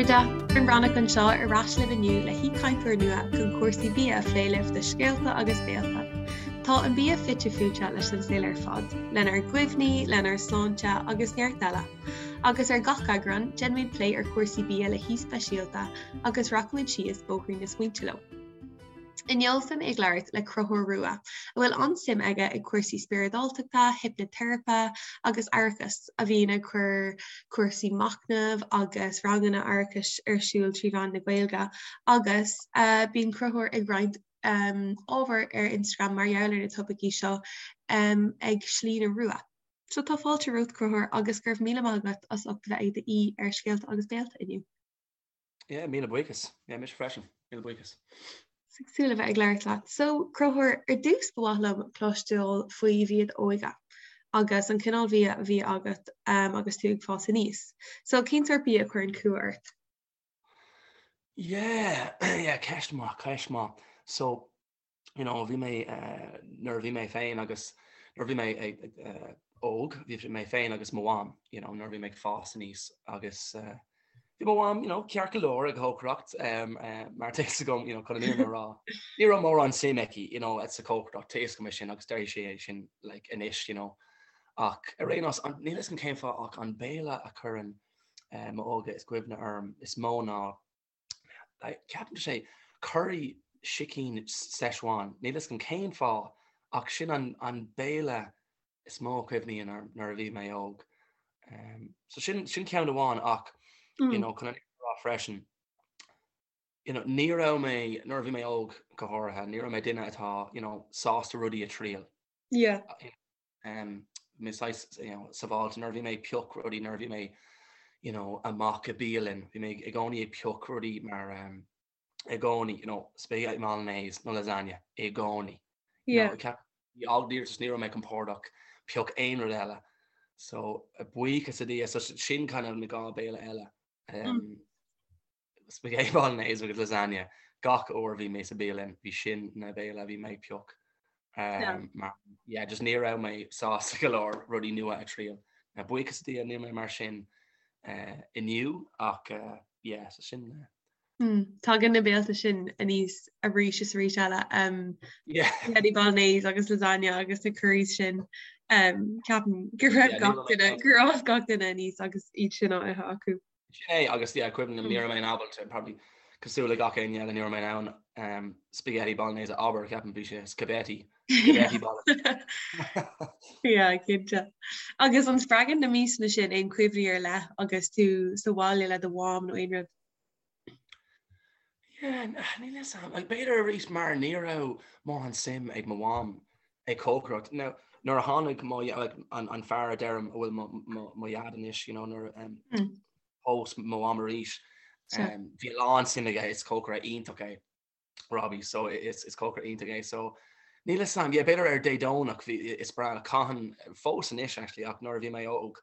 chairde, Doireann Bhreathnach anseo ar ais libh inniu le haoichainteoir nua chun cúrsaí bia a phlé libh do Scéalta agus Béalta. Tá an bia fite fuaite leis an saol ar fad, lenár gcuimhní, lenár sláinte agus neart eile. Agus ar gach eagrán, déanfaimid plé ar chúrsaí bia le haoi speisialta agus rachaimid síos bóithrín na smaointe leo. Inniu beidh mé ag labhairt le Conchúr Rua, a bhfuil an-suim aige i gcúrsaí spioradáltachta, hipniteiripe agus aireachais, a bhíonn ag cur cúrsaí machnaimh agus ranganna aireachais ar siúl trí mheán na Gaeilge agus bíonn Conchúr ag roinnt ábhair ar Instagram mar gheall ar na topaicí seo ag Slí na Rua. So tá fáilte romhat Conchúr agus go raibh míle maith agat as ucht a bheith i d'aoi ar Scéalta agus Béalta inniu. Yeah, míle buíochas. Yeah, mise freisin. Míle buíochas. Ag súil le bheith ag labhairt leat. So, Conchúr, ar dtús ba mhaith liom cloisteáil faoi bhia d'óige agus an cineál bhia a bhí agat um, agus tú ag fás aníos. So, cén sórt bia a chuireann cumha ort? Yeah, yeah, ceist maith, ceist maith. So, you know, bhí mé, nuair a bhí mé féin agus, nuair a bhí mé óg, bhí mé féin agus mo mham, you know, nuair a bhí mé ag fás aníos agus bhí mo mham, you know, ceart go leor ag cócaireacht, mar tá fhios agam, you know, chun an fhírinne a rá, ní raibh mórán suim aici, you know, sa chócaireacht, tá fhios agam é sin agus déarfaidh sí é sin, like, anois, you know. Ach ar aon nós, níl fhios agam cén fáth ach an béile a chuireann m'óige is cuimhne orm is mó ná Ceapaim sé curry sicín Szechuan, níl fhios agam cén fáth ach sin an béile is mó a chuimhníonn orm nuair a bhí mé óg. So sin sin ceann amháin ach you know chun an rá freisin you know ní raibh mé nuair a bhí mé óg go háirithe ní raibh mé duine atá you know sásta rudaí a triail. Yeah. mé saghas you know sábháilte nuair a bhí mé ag pioc rudaí nuair a bhí mé you know amach i bialann bhí mé i gcónaí ag pioc rudaí mar um, i gcónaí you know spaghetti bolognese nó lasagna i gcónaí. Yeah. You know, just ní raibh mé compordach pioc aon rud eile. So buíochas le Dia so sin kind of na dhá béile eile. Um, mm. Spaghetti bolognese agus lasagna gach uair a bhí mé sa bialann, bhí sin na béile a bhí mé ag pioc. Mar yeah, just ní raibh mé sásta go leor rudaí nua a triail. Buíochas le Dia níl mé mar sin inniu ach yeah, so sin. Tagann na béalta sin aníos arís is arís eile. Yeah. Spaghetti bolognese agus lasagna agus na curries sin. Ceapaim go raibh gach duine, gur fhás gach duine aníos agus iad sin á ithe acu. Sin é, agus yeah, cuimhin liom, ní raibh mé in ábalta, probably cosúil le gach éinne eile, ní raibh mé in ann um, spaghetti bolognese a abair, ceapaim bhí sé spaghetti, spaghetti bolognese. Yeah, cinnte. Agus an spreagann na miasanna sin aon chuimhní ar leith agus tú sa bhaile le do mham nó aon rud? Yeah, níl fhios a'm. Like, b'fhéidir arís mar ní raibh mórán suim ag mo mham ag cócaireacht. Now, nuair a tháinig mo, like, an, an fear a deirim a bhfuil mo, mo, mo dhaid anois, you know, nuair a um, Mm. phós mo mham arís, Sea. um, bhí a lán suim aige, is cócaire iontach é. Robbie, so is, is cócaire iontach é. So, níl fhios a'm, yeah, b'fhéidir ar Dé Domhnach bhí, is breá, caitheann, fós anois actually, ach nuair a bhí mé óg,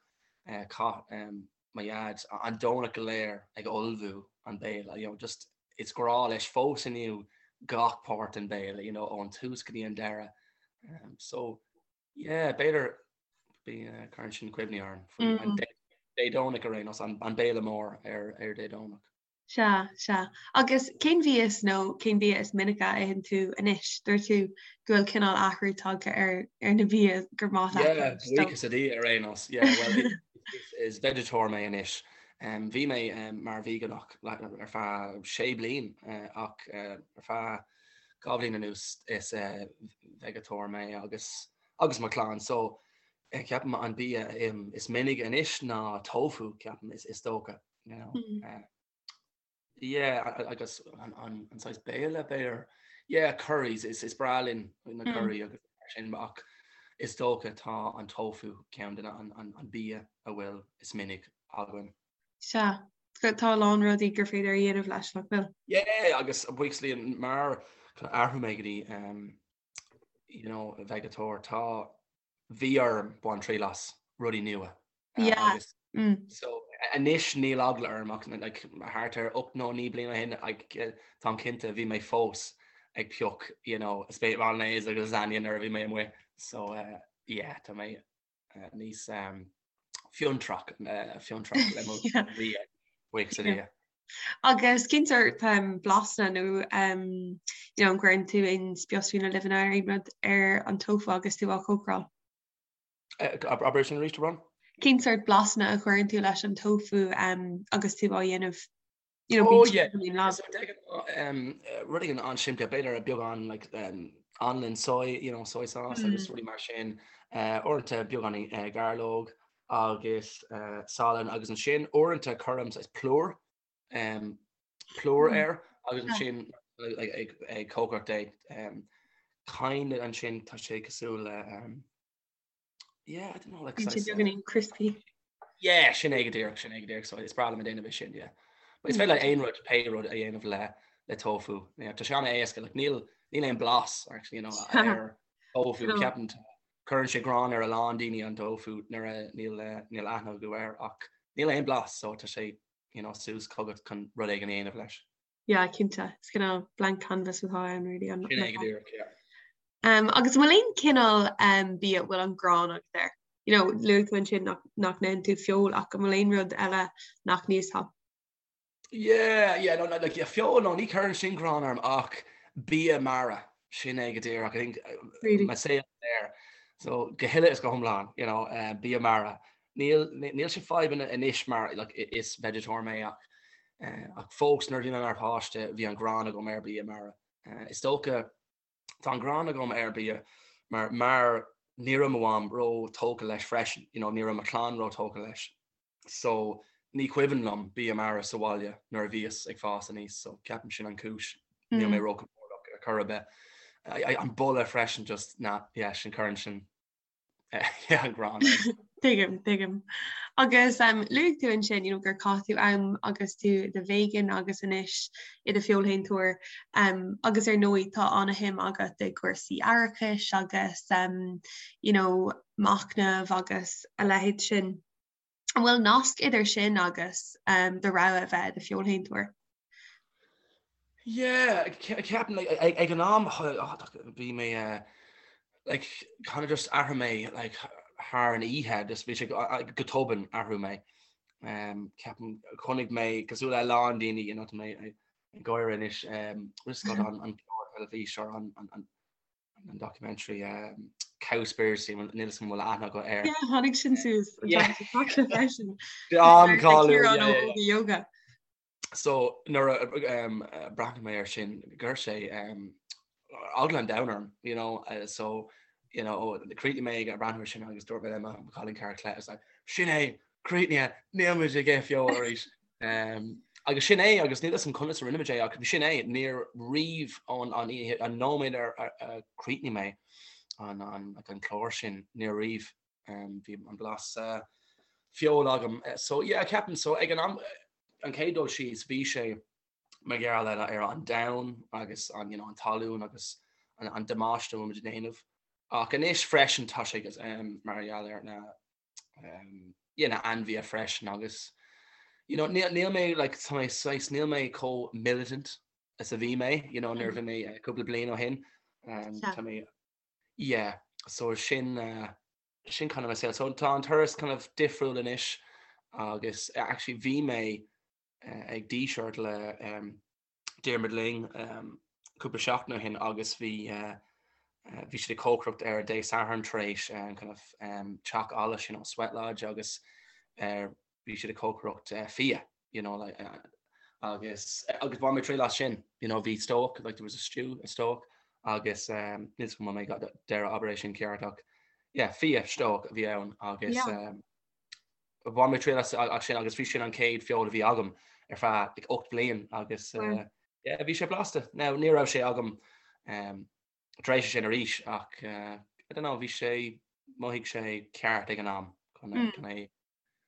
eh, chaith, um, mo dhaid an Domhnach go léir ag ullmhú an béile, you know, just is grá leis fós inniu gach páirt den béile, you know, ón tús go dtí an deireadh. Um, so, yeah, b'fhéidir bí uh, cuireann sin cuimhní orm faoi an Dé Dé Domhnach ar aon nós, an, an béile mór ar, ar Dé Domhnach. Sea, sea. Agus cén bhia is nó cén bia is minice a itheann tú anois? Dúirt tú go bhfuil cineál athrú tagtha ar ar na bia gur maith leat Yeah, anois, so. buíochas le Dia ar aon nós. Yeah, well, is, is vegetóir mé anois. Um, bhí mé um, mar veigeánach ar feadh sé bliain uh, ach uh, ar feadh 2 bhliain anuas is uh, veigetóir mé agus agus mo chlann. So eh, ceapaim an bia um, is minic anois ná tofu, ceapaim is, is dócha. You know? Mm. Uh, yeah, agus an, an, an saghas béile b'fhéidir. Yeah, curries is, is breá linn na Mm. curry agus mar sin ach is dócha tá an tofu ceann de na an, an, an bia a bhfuil is minic againn. Sea, tá a lán rudaí gur féidir a dhéanamh leis, nach bhfuil? Yeah, agus buíochas le Dia mar athrú mé go dtí um, you know, veigeatóir tá bhí orm baint triail as rudaí nua. Yeah. Agus Mm. so anois níl eagla orm ach like, thart ar 8 nó 9 bliana ó shin like, táim cinnte bhí mé fós ag pioc you know, spaghetti bolognese agus lasagna nuair a bhí mé amuigh. So uh, yeah, tá mé uh, níos um, fiontrach uh, fiontrach le mo Yeah. bhia buíochas le Yeah. Dia. Agus cén sórt blasanna nó you know, an gcuireann tú aon spiosaí nó luibheanna nó aon rud ar an tofu agus tú á chócaráil? Abair sin arís, a Bhron? Cén sórt blasanna a chuireann tú leis an tofu agus tú á dhéanamh? You know, oh, yeah. Rud éigin an-simplí, b'fhéidir beagán like, anlann soy, you know, soy sauce agus rudaí mar sin, uaireanta beagán gairleog agus salann agus ansin uaireanta cuirim saghas plúr, plúr air agus ansin ag ag cócaireacht é. Kind of ansin tá sé cosúil le yeah, I don't know, like Bíonn sé beagáinín crispy. Yeah, sin é go díreach, sin é go díreach, so is breá liom a déanamh é sin, yeah. But is féidir le aon rud, pé rud a dhéanamh le le tofu. Yeah, tá sé an-éasca, like níl níl aon blas actually, you know, ar tofu, ceapaim cuireann sé gráin ar a lán daoine an tofu nuair a níl níl aithne acu air ach níl aon blas so tá sé you know, suas chugat chun rud éigin a dhéanamh leis. Yeah, cinnte. Is cineál blank canvas atá ann really. Sin é go díreach, yeah. Um, agus an bhfuil aon cineál um, bia a bhfuil an gráin agat air? You know, luaigh tú ansin nach, nach n-itheann tú feoil ach an bhfuil aon rud eile nach n-íosfá? Yeah, yeah, no, like, yeah, feoil, no, ní chuireann sin gráin orm ach bia mara, sin é go díreach, I think, really? mo saol there. So, go huile is go hiomlán, you know, uh, bia mara. Níl, níl sé fadhb anois mar, like, is vegetarian mé ach, uh, ach fós nuair a bhí mé mar pháiste bhí an gráin agam ar bia mara. Uh, is dócha tá an gráin agam ar bia mar mar ní raibh mo mham ró tógtha leis freisin, you know, ní raibh mo chlann ró tógtha leis. So ní cuimhin liom bia mara sa bhaile nuair a bhíos ag fás aníos, so ceapaim sin an cúis. Níl mé róchompordach ar chor ar bith. An boladh freisin just na, yeah, sin cuireann sin yeah, an gráin orm. Tuigim, tuigim. Agus um, luaigh tú ansin you know, gur chaith tú am agus tú i do vegan agus anois i do feoilshéantóir um, agus ar ndóigh tá an-shuim agat i gcúrsaí aireachais agus um, you know, machnamh agus a leithéid sin. An bhfuil nasc idir sin agus do rogha a bheith i do feoilshéantóir? Yeah, ceapaim like, ag an am bhí mé eh, like, kind of just athraigh mé like, thar an oíche, just bhí sé go tobann athraigh mé. Um, ceapaim chonaic mé cosúil le a lán daoine, you know, tá mé ag gáire anois, um, just got an an clár teilifís ar an an an an documentary Cowspiracy, níl a fhios agam an bhfuil aithne agat air. Yeah, tháinig sin suas freisin. An-cháiliúil. Yoga. So nuair a breathnaigh mé air sin, chuir sé eagla an domhain orm, you know, so you know, chríochnaigh mé ag breathnú air sin agus dúirt mé le mo chailín cara Claire, I was like, sin é, críochnaithe, níl muid ag ithe feoil arís. Agus sin é, agus níl a fhios agam conas a rinne muid é, ach sin é, níor riamh ón an oíche, an nóiméad ar a chríochnaigh mé an an an clár sin, níor riamh bhí an blas feoil agam. So yeah, ceapaim, so ag an am, an chéad dul síos, bhí sé mar gheall ar ar an domhan agus an you know an talún agus an an damáiste a bhfuil muid ag déanamh. Ach anois freisin tá sé mar gheall ar na you know, ainmhithe freisin agus you know, níl, níl mé like, tá mé saghas, níl mé chomh militant is a bhí mé, you know, nuair a bhí mé uh, cúpla bliain ó shin. Um, tá mé, yeah, so sin, uh, sin kind of mo saol. So tá an turas kind of difriúil anois agus uh, actually bhí mé uh, ag Díseart le um, Diarmuid Lyng cúpla seachtain ó shin agus bhí bhí siad ag cócaireacht ar Dé Sathairn tar éis an kind of teach allais, you know, sweat lodge agus bhí siad ag cócaireacht fia, you know, like agus agus bhain mé triail as sin, you know, bhí stobhach, like there was a stew, a stobhach agus níl a fhios agam an bhfuil mé ag déanamh abair é sin ceart ach yeah, fia stobhach a bhí ann agus Bhain mé triail as sin agus bhí sin an chéad feoil a bhí agam ar feadh like, 8 bliain agus uh, yeah, bhí sé blasta. Now, ní raibh sé agam um, tar éis sin arís ach uh, I don't know, bhí sé mhothaigh sé ceart ag an am chun mm. chun é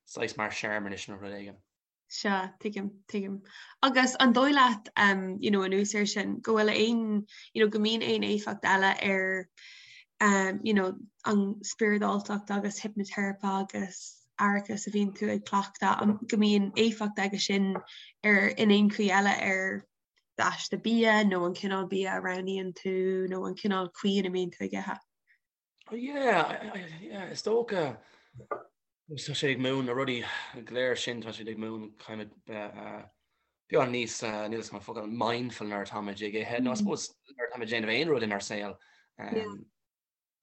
saghas mar searmanas nó rud éigin. Sea, tuigim, tuigim. Agus an dóigh leat, um, you know, anuas air sin, go bhfuil aon, you know, go mbíonn aon éifeacht eile ar, um, you know, an spioradáltacht agus hipniteiripe agus aireachas a bhíonn tú ag cleachtadh, an, go mbíonn éifeacht aige sin ar, in aon chaoi eile ar d'aiste bia nó an cineál bia a roghnaíonn tú nó an cineál chaoi ina mbíonn tú ag ithe? Oh yeah, yeah, is dócha tá sé ag múineadh na rudaí go léir sin tá siad ag múineadh kind of uh, uh, Beagán níos, níl 'fhios agam an focal, mindful nuair atáimid ag ithe, nó I suppose nuair atáimid ag déanamh aon rud inár saol,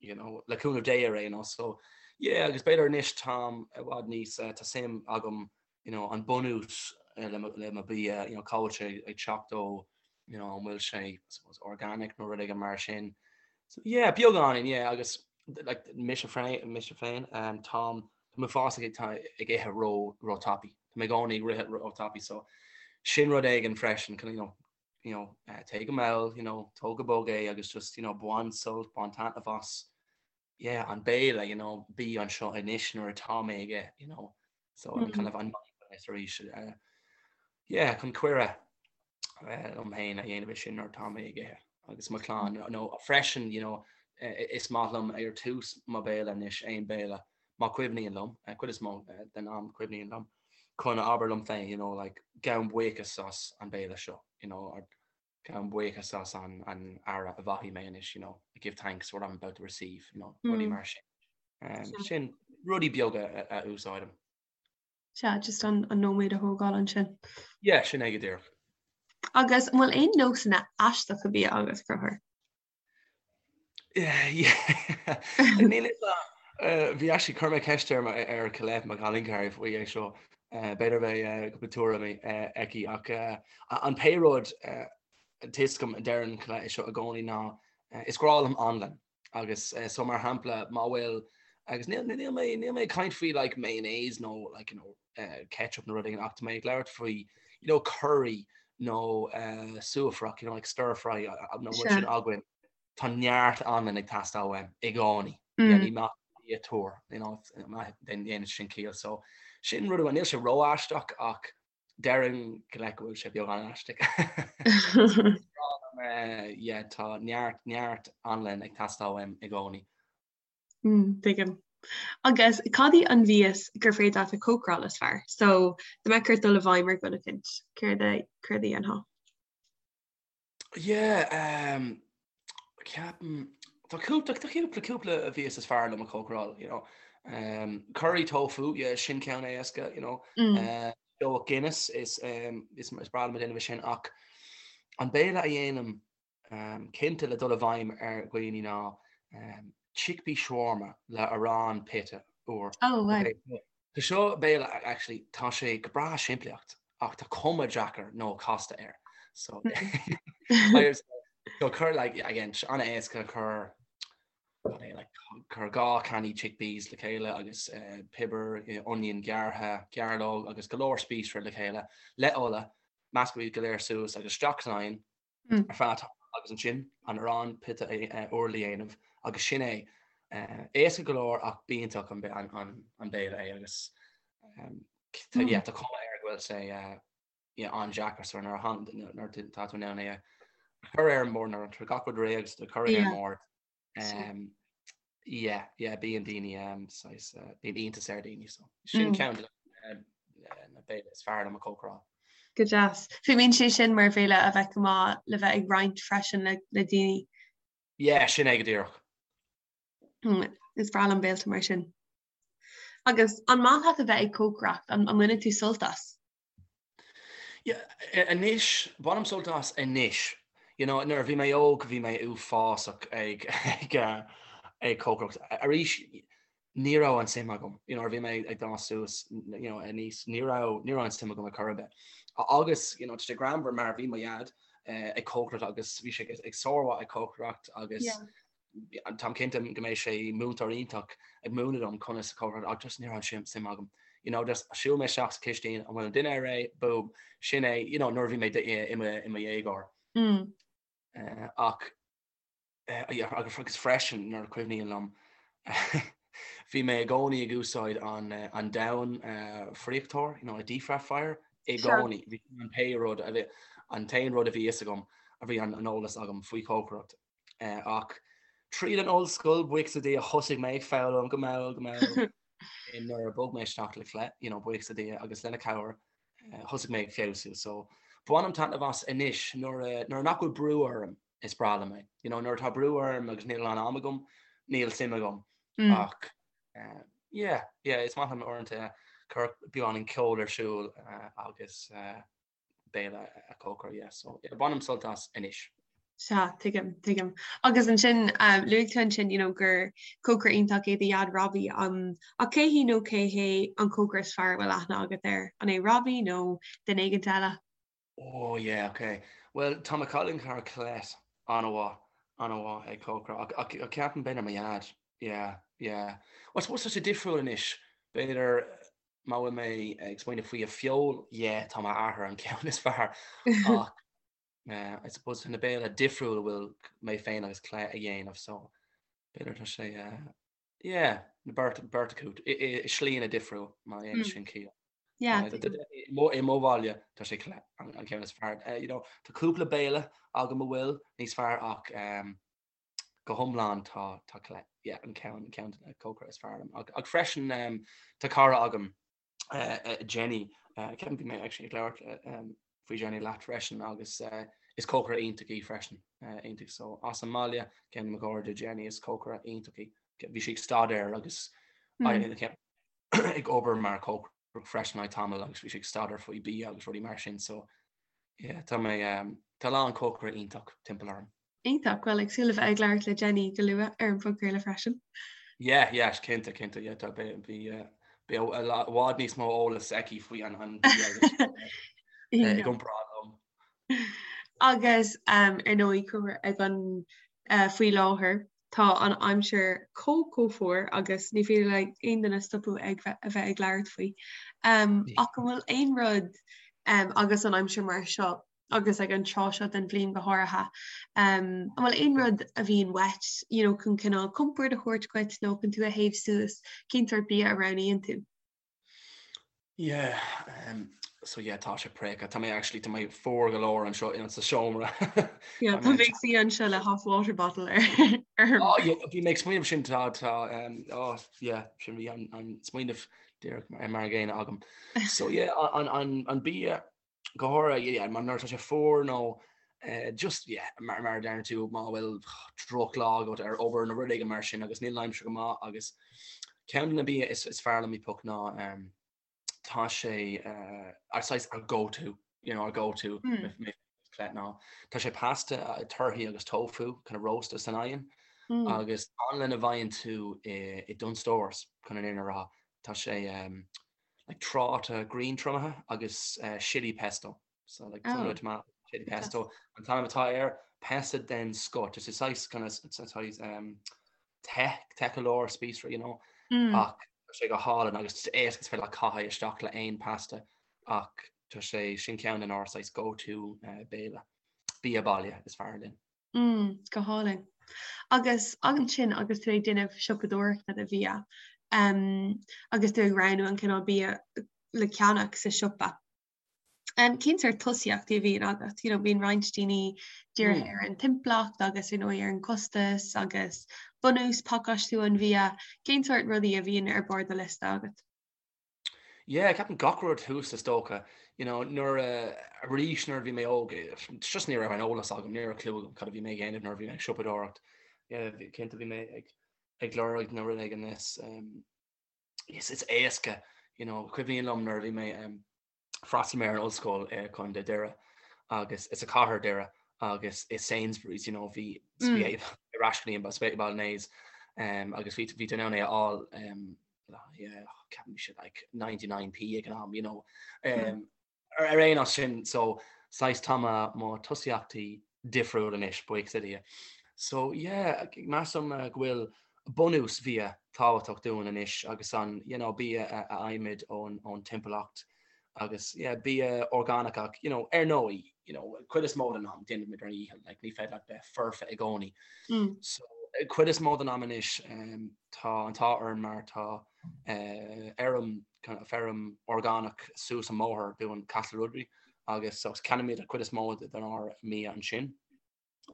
you know, le cúnamh Dé ar aon nós. So, yeah, agus b'fhéidir anois táim i bhfad níos, tá suim agam, you know, an bunús le mo, le mo bia, you know, cá bhfuil sé ag teacht ó, you know, an bhfuil sé, I suppose, organic nó rud éigin mar sin. So, yeah, beagáinín, yeah, agus like, mise féin, mise féin, um, táim, Tá mé fós ag ag ithe ró ró tapaidh. Tá mé i gcónaí ag rith ró tapaidh so sin rud éigin freisin you know you know téigh go mall you know tóg go bog é agus just you know bain sult bain taitneamh as yeah an béile you know bí anseo anois nuair atá mé ag ithe you know so an kind of an mindfulness arís uh, yeah chun cuireadh liom féin a dhéanamh é sin nuair atá mé ag ithe agus mo chlann nó freisin you know is maith liom ar tús mo béile anois aon béile má cuimhníonn liom cuid is mó den am cuimhníonn liom chun a abair liom féin you know like gabhaim buíochas as an béile seo you know or gabhaim buíochas as an an aire a bhfaighidh mé anois you know I give thanks for what I'm about to receive you know rudaí mar sin um, sin rudaí beaga a úsáidim. Sea, just an nóiméad a thógáil ansin. Yeah, sin é go díreach. Agus an bhfuil aon nósanna aisteacha bia agat, Conchúr? Níl fhios a'm. Bhí actually, chuir mé ceist ar ar Colette, mo chailín cara faoi é seo. B'fhéidir beidh cúpla tuairimí aici ach an pé rud tá 'fhios agam a deireann Colette é seo i gcónaí ná is grá liom anlann. Agus so mar shampla má bhfuil agus níl níl mé níl mé ag caint faoi like mayonnaise nó like you know ketchup nó rud éigin ach tá mé ag labhairt faoi you know curry nó suaifreach you know like stir fry nó rud sin againn tá neart anlann ag teastáil uaim i gcónaí. Yeah, ní maith bia úr you know déanann sin ciall so sin rud amháin níl sé ró-aisteach ach Déarfainn go leith go bhfuil sé beagán aisteach. Yeah, tá neart, neart anlainn ag teastáil uaim i gcónaí. Tuigim. Agus cad í an mhias gur féidir leat a chócaráil is fearr? So, dá mbeadh ort dul i bhfeidhm ar dhuine eicínt, céard a, céard a dhéanfá? Yeah, um, ceapaim, tá cúpla, tá cúpla, cúpla mhias is fearr liom a chócaráil, you know. Um, curry tofu, yeah, sin ceann éasca, you know. Mm. Uh, deoch Guinness is, um, is, is breá liom a dhéanamh sin ach an béile a dhéanaim um, cinnte le dul i bhfeidhm ar dhaoine ná um, chickpea shawarma le arán pita úr. Oh, wow. Okay. Tá seo béile actually tá sé go breá simplí ach tá cuma deacair nó casta air. So so cuir like again an-éasca cuir like cuir 2 cannaí chickpeas le chéile agus uh, piobar, uh, onion gearrtha, gairleog agus go leor spíosra le chéile le ola, measc iad go léir suas agus isteach san oigheann ar feadh tamaill agus ansin an arán pita úr le dhéanamh agus sin é. Éasca go leor ach b'iontach an béile é agus yeah tá cuma air go bhfuil sé yeah an-deacair so nuair a nuair tá tú in ann é a chur ar an mbord nuair atá gach rud réidh agus tú ag cur é ar an mbord Yeah, yeah, bíonn daoine um, saghas, uh, bíonn iontas ar daoine, so sin mm. ceann de na béile is fearr liom a chócaráil. Go deas. Fuaimníonn sé sin mar bhéile a bheadh go maith le bheith ag roinnt freisin le, le daoine. Yeah, sin é go díreach. Mm, is breá liom béilte mar sin. Agus an maith leat a bheith ag cócaireacht, an, an mbaineann tú sult as? Anois, bainim sult as anois. You know, nuair a bhí mé óg, bhí mé uafásach ag ag ag cócaireacht. Arís, ní raibh an suim agam. You know, nuair a bhí mé ag dul suas, you know, aníos, ní raibh ní raibh an suim agam ar chor ar bith. Agus, you know, tá sé greannmhar mar bhí mo dhaid ag cócaireacht agus bhí sé ag sármhaith ag cócaireacht agus Táim cinnte go mbeidh sé múinteoir iontach ag múineadh dom conas cócaireacht ach just ní raibh an suim agam. You know, just shiúil mé isteach sa chistín, an bhfuil an dinnéar réidh? Boom, sin é, you know, nuair a bhí mé i mo i mo dhéagóir. Mm. Uh, ach uh, yeah, agus agus freisin nuair a cuimhníonn liom bhí mé i gcónaí ag úsáid an uh, an domhan uh, friochtóir, you know, a deep fryer i gcónaí. Bhí an pé rud a bhí an t-aon rud a bhí fhios agam a bhí an an eolas agam faoi chócaireacht. Ach tríd an ollscoil, buíochas le Dia, thosaigh mé ag foghlaim go mall, go mall nuair a bhog mé isteach le Colette, you know, buíochas le Dia agus lena cabhair, thosaigh mé ag feabhsú. So, bainim taitneamh as anois nuair a, nuair nach bhfuil brú orm, is breá liom é. You know, nuair atá brú orm agus níl a lán am agam, níl suim agam. Ach, yeah, yeah, is maith liom uaireanta cur beagáinín ceoil ar siúl agus. béile a chócaire, yeah, so yeah, bainim sult as anois. Sea, tuigim, tuigim. Agus ansin, luaigh tú ansin, you know, gur cócaire iontach é do dhaid Robbie, um, ach cé hí nó cé hé an cócaire is fearr a bhfuil aithne agat air? An é Robbie nó duine éigint eile? Oh yeah, ok. Bhuel, tá mo cailín cara Colette an-mhaith, an-mhaith ag cócaire, ach, ach, ach ceapaim b'fhéidir mo dhaid, yeah, yeah. Well, I suppose tá sé difriúil anois, b'fhéidir má bhfuil mé ag smaoineamh faoi a feoil, yeah, tá m'athair an ceann is fearr, ach eh, I suppose tá na béile difriúil a bhfuil mé féin agus Colette a dhéanamh, so b'fhéidir tá sé, eh, yeah, na beirt, beirt acu, i, i, i slíanna difriúil, má dhéanann sin ciall. Yeah. I mo bhaile tá sé Colette an ceann is fearr. You know, tá cúpla béile agam a bhfuil níos fearr ach um, go hiomlán tá tá Colette yeah, an ceann an ceann cócaire is fearr liom. Ach, ach freisin um, tá cara agam uh, uh, Jenny uh, ceapaim bhí mé actually ag labhairt uh, um, faoi Jenny leat freisin agus uh, is cócaire iontach í freisin uh, iontach so as an mbaile ceann de mo chairde Jenny is cócaire iontach í. Bhí sí ag staidéar agus mm. ag obair mar chócaire freisin le tamall agus bhí sí ag staidéar faoi bia agus rudaí mar sin so yeah tá mé um, tá a lán cócaire iontach timpeall orm. Iontach, bhuel ag súil le bheith ag labhairt le Jenny go luath ar an bpodchraoladh freisin. Yeah, yeah, cinnte, cinnte, yeah, tá bhí bhí eh, i bhfad níos mó eolas aici faoi an an bia agus eh, i gcomparáid liom. Agus um, ar ndóigh cur ag an uh, faoi láthair Tá an aimsir chomh chomh fuar agus ní féidir le aon duine stopadh ag a bheith ag labhairt faoi. Ach an bhfuil aon rud agus an aimsir mar seo agus ag an tráth seo den bhliain go háirithe, an bhfuil aon rud a bhíonn uait you know chun cineál compord a thabhairt dhuit nó chun tú a théamh suas, cén sórt bia a roghnaíonn tú? Yeah, um, so yeah, tá sé préachta. Tá mé actually, tá mé fuar go leor anseo in sa seomra. Yeah, tá mé ag suí anseo le half water bottle ar. Oh, yeah, bhí mé ag smaoineamh sin tá tá um, oh, yeah, sin bhí an, an smaoineamh díreach mar mar an gcéanna agam. So yeah, an, an, an bia go háirithe, yeah, mar nuair atá sé fuar nó eh, just yeah, mar mar a deireann tú má bhfuil drochlá agat ar obair nó rud éigin mar sin agus níl an aimsir go maith agus ceann de na bia is, is fearr liom i bpoc ná um, tá sé uh, ar saghas our go to, you know, our go to mm. mé Colette ná tá sé pasta uh, torthaí agus tofu kind of rósta san oigheann mm. agus anlann a bhfaigheann tú i, i Dunnes Stores chun an fhírinne a rá tá sé um, like tráta griantriomaithe agus chilli pesto. So like oh. tomato chilli pesto. An t-ainm atá air pasta den scoth. It's a saghas kind of it's a saghas um, te te go leor spíosra, you know. Mm. Ach tá sé go hálainn agus éasca is féidir leat caitheamh isteach le aon pasta ach tá sé sin ceann den ár saghas go to uh, béile bia baile is fearr linn. Mm, go hálainn. Agus ansin agus tú ag déanamh siopadóireachta do bhia, um, agus tú ag roghnú an cineál bia le ceannach sa siopa. Um, cén sórt tosaíochtaí a bhíonn agat? You know, bíonn roinnt daoine dírithe mm. ar an timpeallacht agus you know, ar an costas agus bunús pacáistiú an bhia. Cén sórt rudaí a bhíonn ar bharr do liosta agat? Yeah, ceapaim gach rud thuas is dócha. You know, nuair a, arís nuair a bhí mé óg, just ní raibh an eolas agam, ní raibh clue agam cad a bhí mé ag déanamh nuair a bhí mé ag siopadóireacht. Yeah, cinnte bhí mé ag ag lorg na rud éigin is um, is is éasca, you know, cuimhním liom nuair a bhí mé um, D'fhreastail mé ar an ollscoil i Contae Doire agus is sa chathair Doire agus i Sainsbury's, you know, bhí mm. ar ais go dtí an spaghetti bolognese um, agus bhí bhí tú in ann é a fháil um, yeah, ceapaim bhí sé like 99p ag an am, you know. Um, ar ar aon nós sin so saghas tá mo mo tosaíochtaí difriúil anois buíochas le Dia. So yeah, measaim uh, go bhfuil bunús bhia tábhachtach dúinn anois agus an you know, bia a a fhaighimid ón ón timpeallacht agus yeah, bia orgánach ach you know, ar ndóigh you know, cuid is mó den am déanaimid ár ndícheall like, ní féidir leat bheith foirfe i gcónaí. Mm. So cuid is mó den am anois um, tá an t-ádh orm mar tá uh, fheirm kind of feirm orgánach suas an mbóthar dúinn Castleruddery agus so ceannaímid an cuid is mó den ár mbia ansin.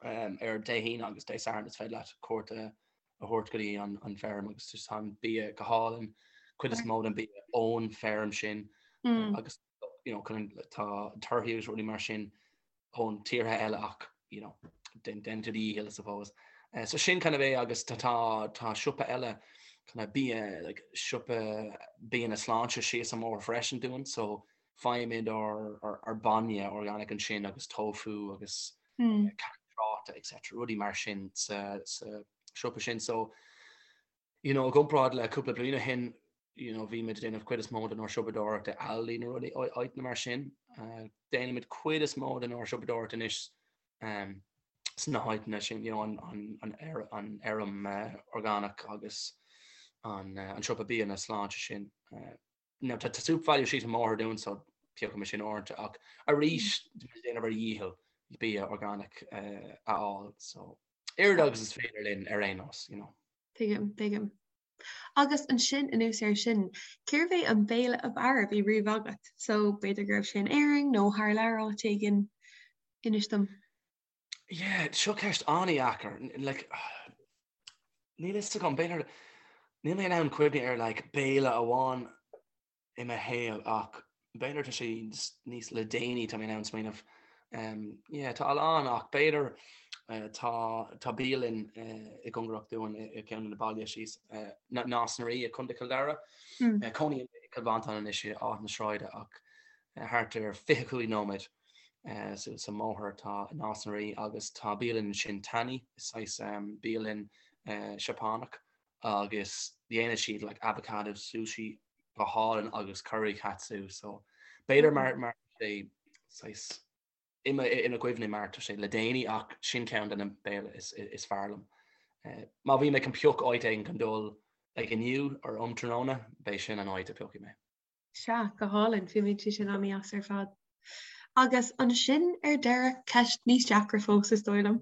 Um, ar Dé hAoine agus Dé Sathairn is féidir leat cuairt a a thabhairt go dtí an, an feirm agus just tá an bia go hálainn, cuid is mó den bia ón feirm sin mm. agus you know, chun tá torthaí agus rudaí mar sin ón tíortha eile ach you know, den den do dhícheall I suppose. Uh, so sin kind of é agus tá tá tá siopa eile kind of bia like siopa bia na sláinte síos an mbóthar freisin dúinn so. Faighimid ár bainne organic ansin agus tofu agus cairt tráta etc. Rudaí mar sin sa siopa sin. So, you know, i gcomparáid le cúpla bliain ó shin, you know, bhí muid ag déanamh cuid is mó den ár siopadóireacht i Aldi nó rudaí áiteanna mar sin. Déanaimid cuid is mó den ár siopadóireacht anois sna háiteanna sin, you know, an fheirm orgánach agus an siopa bia na sláinte sin. Now tá SuperValu síos an mbóthar dúinn so piocfaimid sin uaireanta ach arís tá muid ag déanamh ár dhícheall bia orgánach a fháil so oiread agus is féidir linn ar aon nós, you know. Tuigim, tuigim. Agus ansin anuas air sin, cérbh é an béile ab fhearr a bhí riamh agat? So b'fhéidir go raibh sé in Éirinn nó thar lear áit éigin, inis dom. Yeah, seo ceist an-dheacair. Like, níl fhios agam, b'fhéidir, níl mé in ann cuimhneamh ar like, béile amháin i mo shaol ach b'fhéidir tá sé níos le déanaí tá mé in ann smaoineamh. Um, yeah, tá a lán ach b'fhéidir uh, tá, tá bialann uh, i gcóngarach dúinn i, i gceann de na baile síos uh, Nás na Rí i Contae Chill Dara. Mm. Uh, cónaím i Cill Mhantáin anois i Áth na Sráide ach uh, thart ar 25 nóiméad Suas an mbóthar tá Nás na Rí agus tá bialann ansin Tani, is saghas bialann Seapánach agus dhéanann siad like avocado sushi go hálainn agus curry katsu so b'fhéidir mar mar sé saghas i mo i mo chuimhne mar tá sé le déanaí ach sin ceann de na béile is is fearr liom. Má bhí mé chun pioc áit éigin chun dul like inniu or um tráthnóna beidh sin an áit a piocfaidh mé. Sea, go hálainn, fuaimníonn sé sin an-deas ar fad. Agus ansin ar deireadh, ceist níos deacra fós is dóigh liom.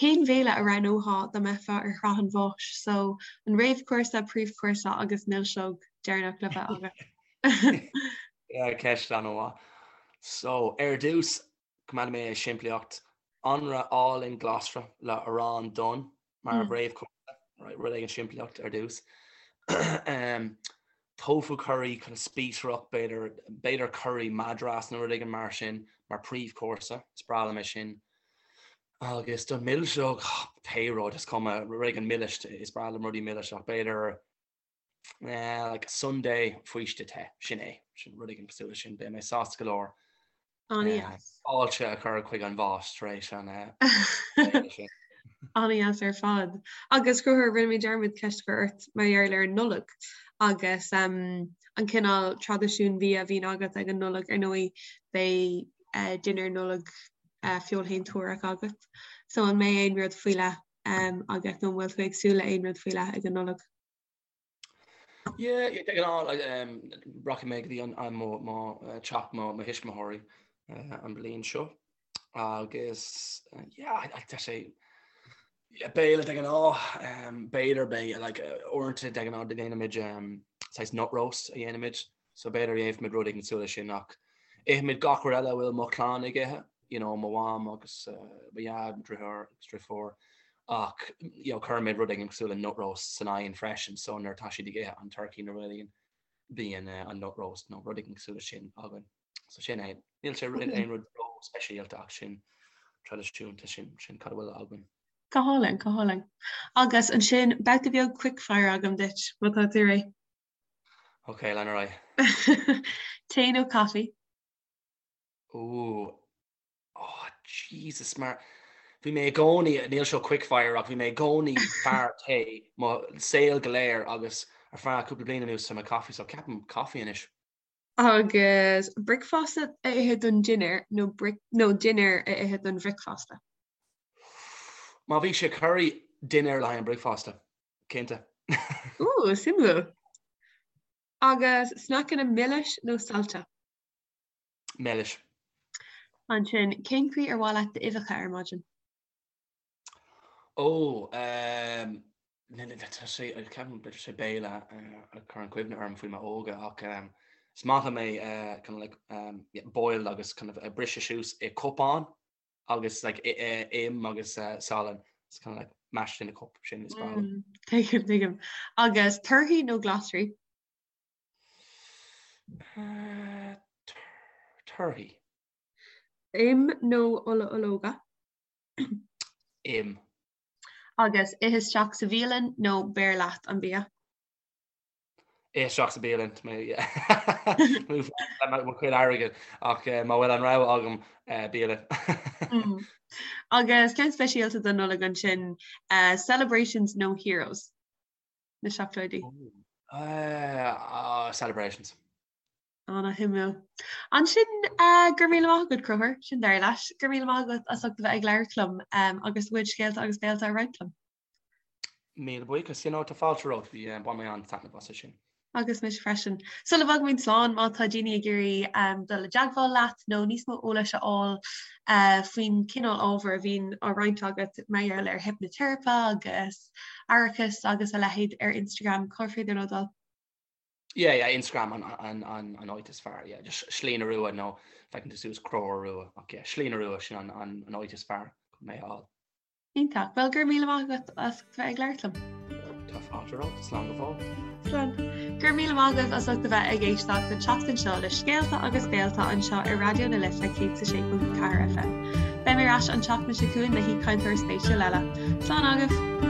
Cén bhéile a roghnófá dá mbeifeá ar shraith an bháis? So, an réamhchúrsa, príomhchúrsa agus milseog deireanach le bheith agat. Yeah, ceist an-mhaith. So, ar dtús, coimeádfaidh mé é simplíocht. Anraith álainn glasra le arán donn mar réamhchúrsa, right, rud éigin simplíocht ar dtús. Tofu curry kind of spíosrach, b'fhéidir, b'fhéidir curry Madras nó rud éigin mar sin mar príomhchúrsa, is breá liom é sin. Agus don milseog, pé rud, is cuma, rud éigin milis, is breá liom rudaí milis ach b'fhéidir like sundae faoiste te, sin é, sin rud éigin cosúil leis sin, beidh mé sásta go leor. An-deas. Fáilte a chur chuig an bhás tar éis an sin. An-deas ar fad. Agus Conchúr, rinne mé dearmad ceist a chur ort mar gheall ar an Nollaig agus an cineál traidisiún bia a bhíonn agat ag an Nollaig, ar ndóigh beidh dinnéar Nollag feoilshéantúrach agat. So an mbeidh aon rud faoi leith agat nó an bhfuil tú ag súil le aon rud faoi leith ag an Nollaig? Yeah, de ghnáth rachaidh mé go dtí an mo mo teach mo mo thuismitheoirí an bhliain seo agus yeah tá sé béile de ghnáth b'fhéidir beidh like uaireanta de ghnáth déanaimid saghas nut roast a dhéanaimid So b'fhéidir dhéanfaimid rud éigin cosúil leis sin ach ithimid gach rud eile a bhfuil mo chlann ag ithe, you know, mo mham agus mo dhaid, mo dhriotháir agus driofúr ach you know, cuirimid rud éigin cosúil le nut roast san oigheann freisin so nuair atá siad ag ithe an turkey nó rud éigin bíonn an nut roast nó rud éigin cosúil leis sin againn. So sin é. Níl sé aon rud ró-speisialta ach sin traidisiúnta sin sin cad a bhfuil againn. Go hálainn, go hálainn. Agus ansin babhta beag quick fire agam duit, má tá tú réidh. Ok, lean ar aghaidh. Tae nó caife? Ooh, oh Jesus, mar bhí mé i gcónaí, níl seo quick fire ach bhí mé i gcónaí fear tae mo saol go léir agus ar feadh cúpla bliain anuas tá mé coffee so ceapaim coffee anois. Agus bricfeasta a ithe don dinnéar nó nó dinnéar a ithe don bhricfeasta? Má bhí sé curry, dinnéar le haghaidh an bricfeasta. Cinnte. Ooh, suimiúil. Agus sneaiceanna milis nó saillte? Milis. Ansin, cén chaoi ar mhaith leat d'uibheacha ar maidin? Ó, ehm, tá sé, ceapaim b'fhéidir sé béile a chuireann cuimhne orm faoi m'óige ach ehm, is maith liom é eh, kind of like, ehm, yeah, boiled agus kind of eh, briseadh suas i cupán agus like im agus salann it's kind of like mashed in a cup sin is breá liom. Mm, tuigim, tuigim. Agus torthaí nó glasraí? Uh, torthaí. Im nó ola ológa? Im. Agus ithe isteach sa bhialann nó beir leat an bia? Isteach sa bhialann le mo chuid airgid ach má bhfuil an rogha agam bialann. Agus ceann speisialta don Nollaig ansin, celebrations nó heroes? Na seacláidí. Celebrations. Ana-shuimiúil. Ansin go raibh míle maith agat, Conchúr, sin deireadh leis. Go raibh míle maith agat as ucht a bheith ag labhairt liom agus do chuid scéalta agus béalta a roinnt liom. Míle buíochas. You know, tá fáilte romhat. Bhí, bhain mé an-taitneamh as sin. Agus mise freisin. Sula bhfágaimid slán, má tá daoine ag iarraidh dul i dteagmháil leat nó níos mó eolais a fháil faoin cineál ábhair a bhíonn á roinnt agat mar gheall ar hipniteiripe agus aireachas agus a leithéid ar Instagram, cár féidir leo dul? Yeah, yeah, Instagram an, an, an, an áit is fearr, yeah, just Slí na Rua nó feiceann tú suas Conchúr Rua, ach yeah, Slí na Rua sin an, an, an áit is fearr chun mé a fháil. Iontach. Bhuel, go raibh míle maith agat as ucht a bheith ag labhairt liom. Tá fáilte romhat, slán go fóill. Slán. Go raibh míle maith agaibh as ucht a bheith ag éisteacht an tseachtain seo le Scéalta agus Béalta anseo ar Raidió na Life 106.4 FM. Beidh mé ar ais an tseachtain seo chugainn le haoichainteoir spéisiúil eile. Slán agaibh!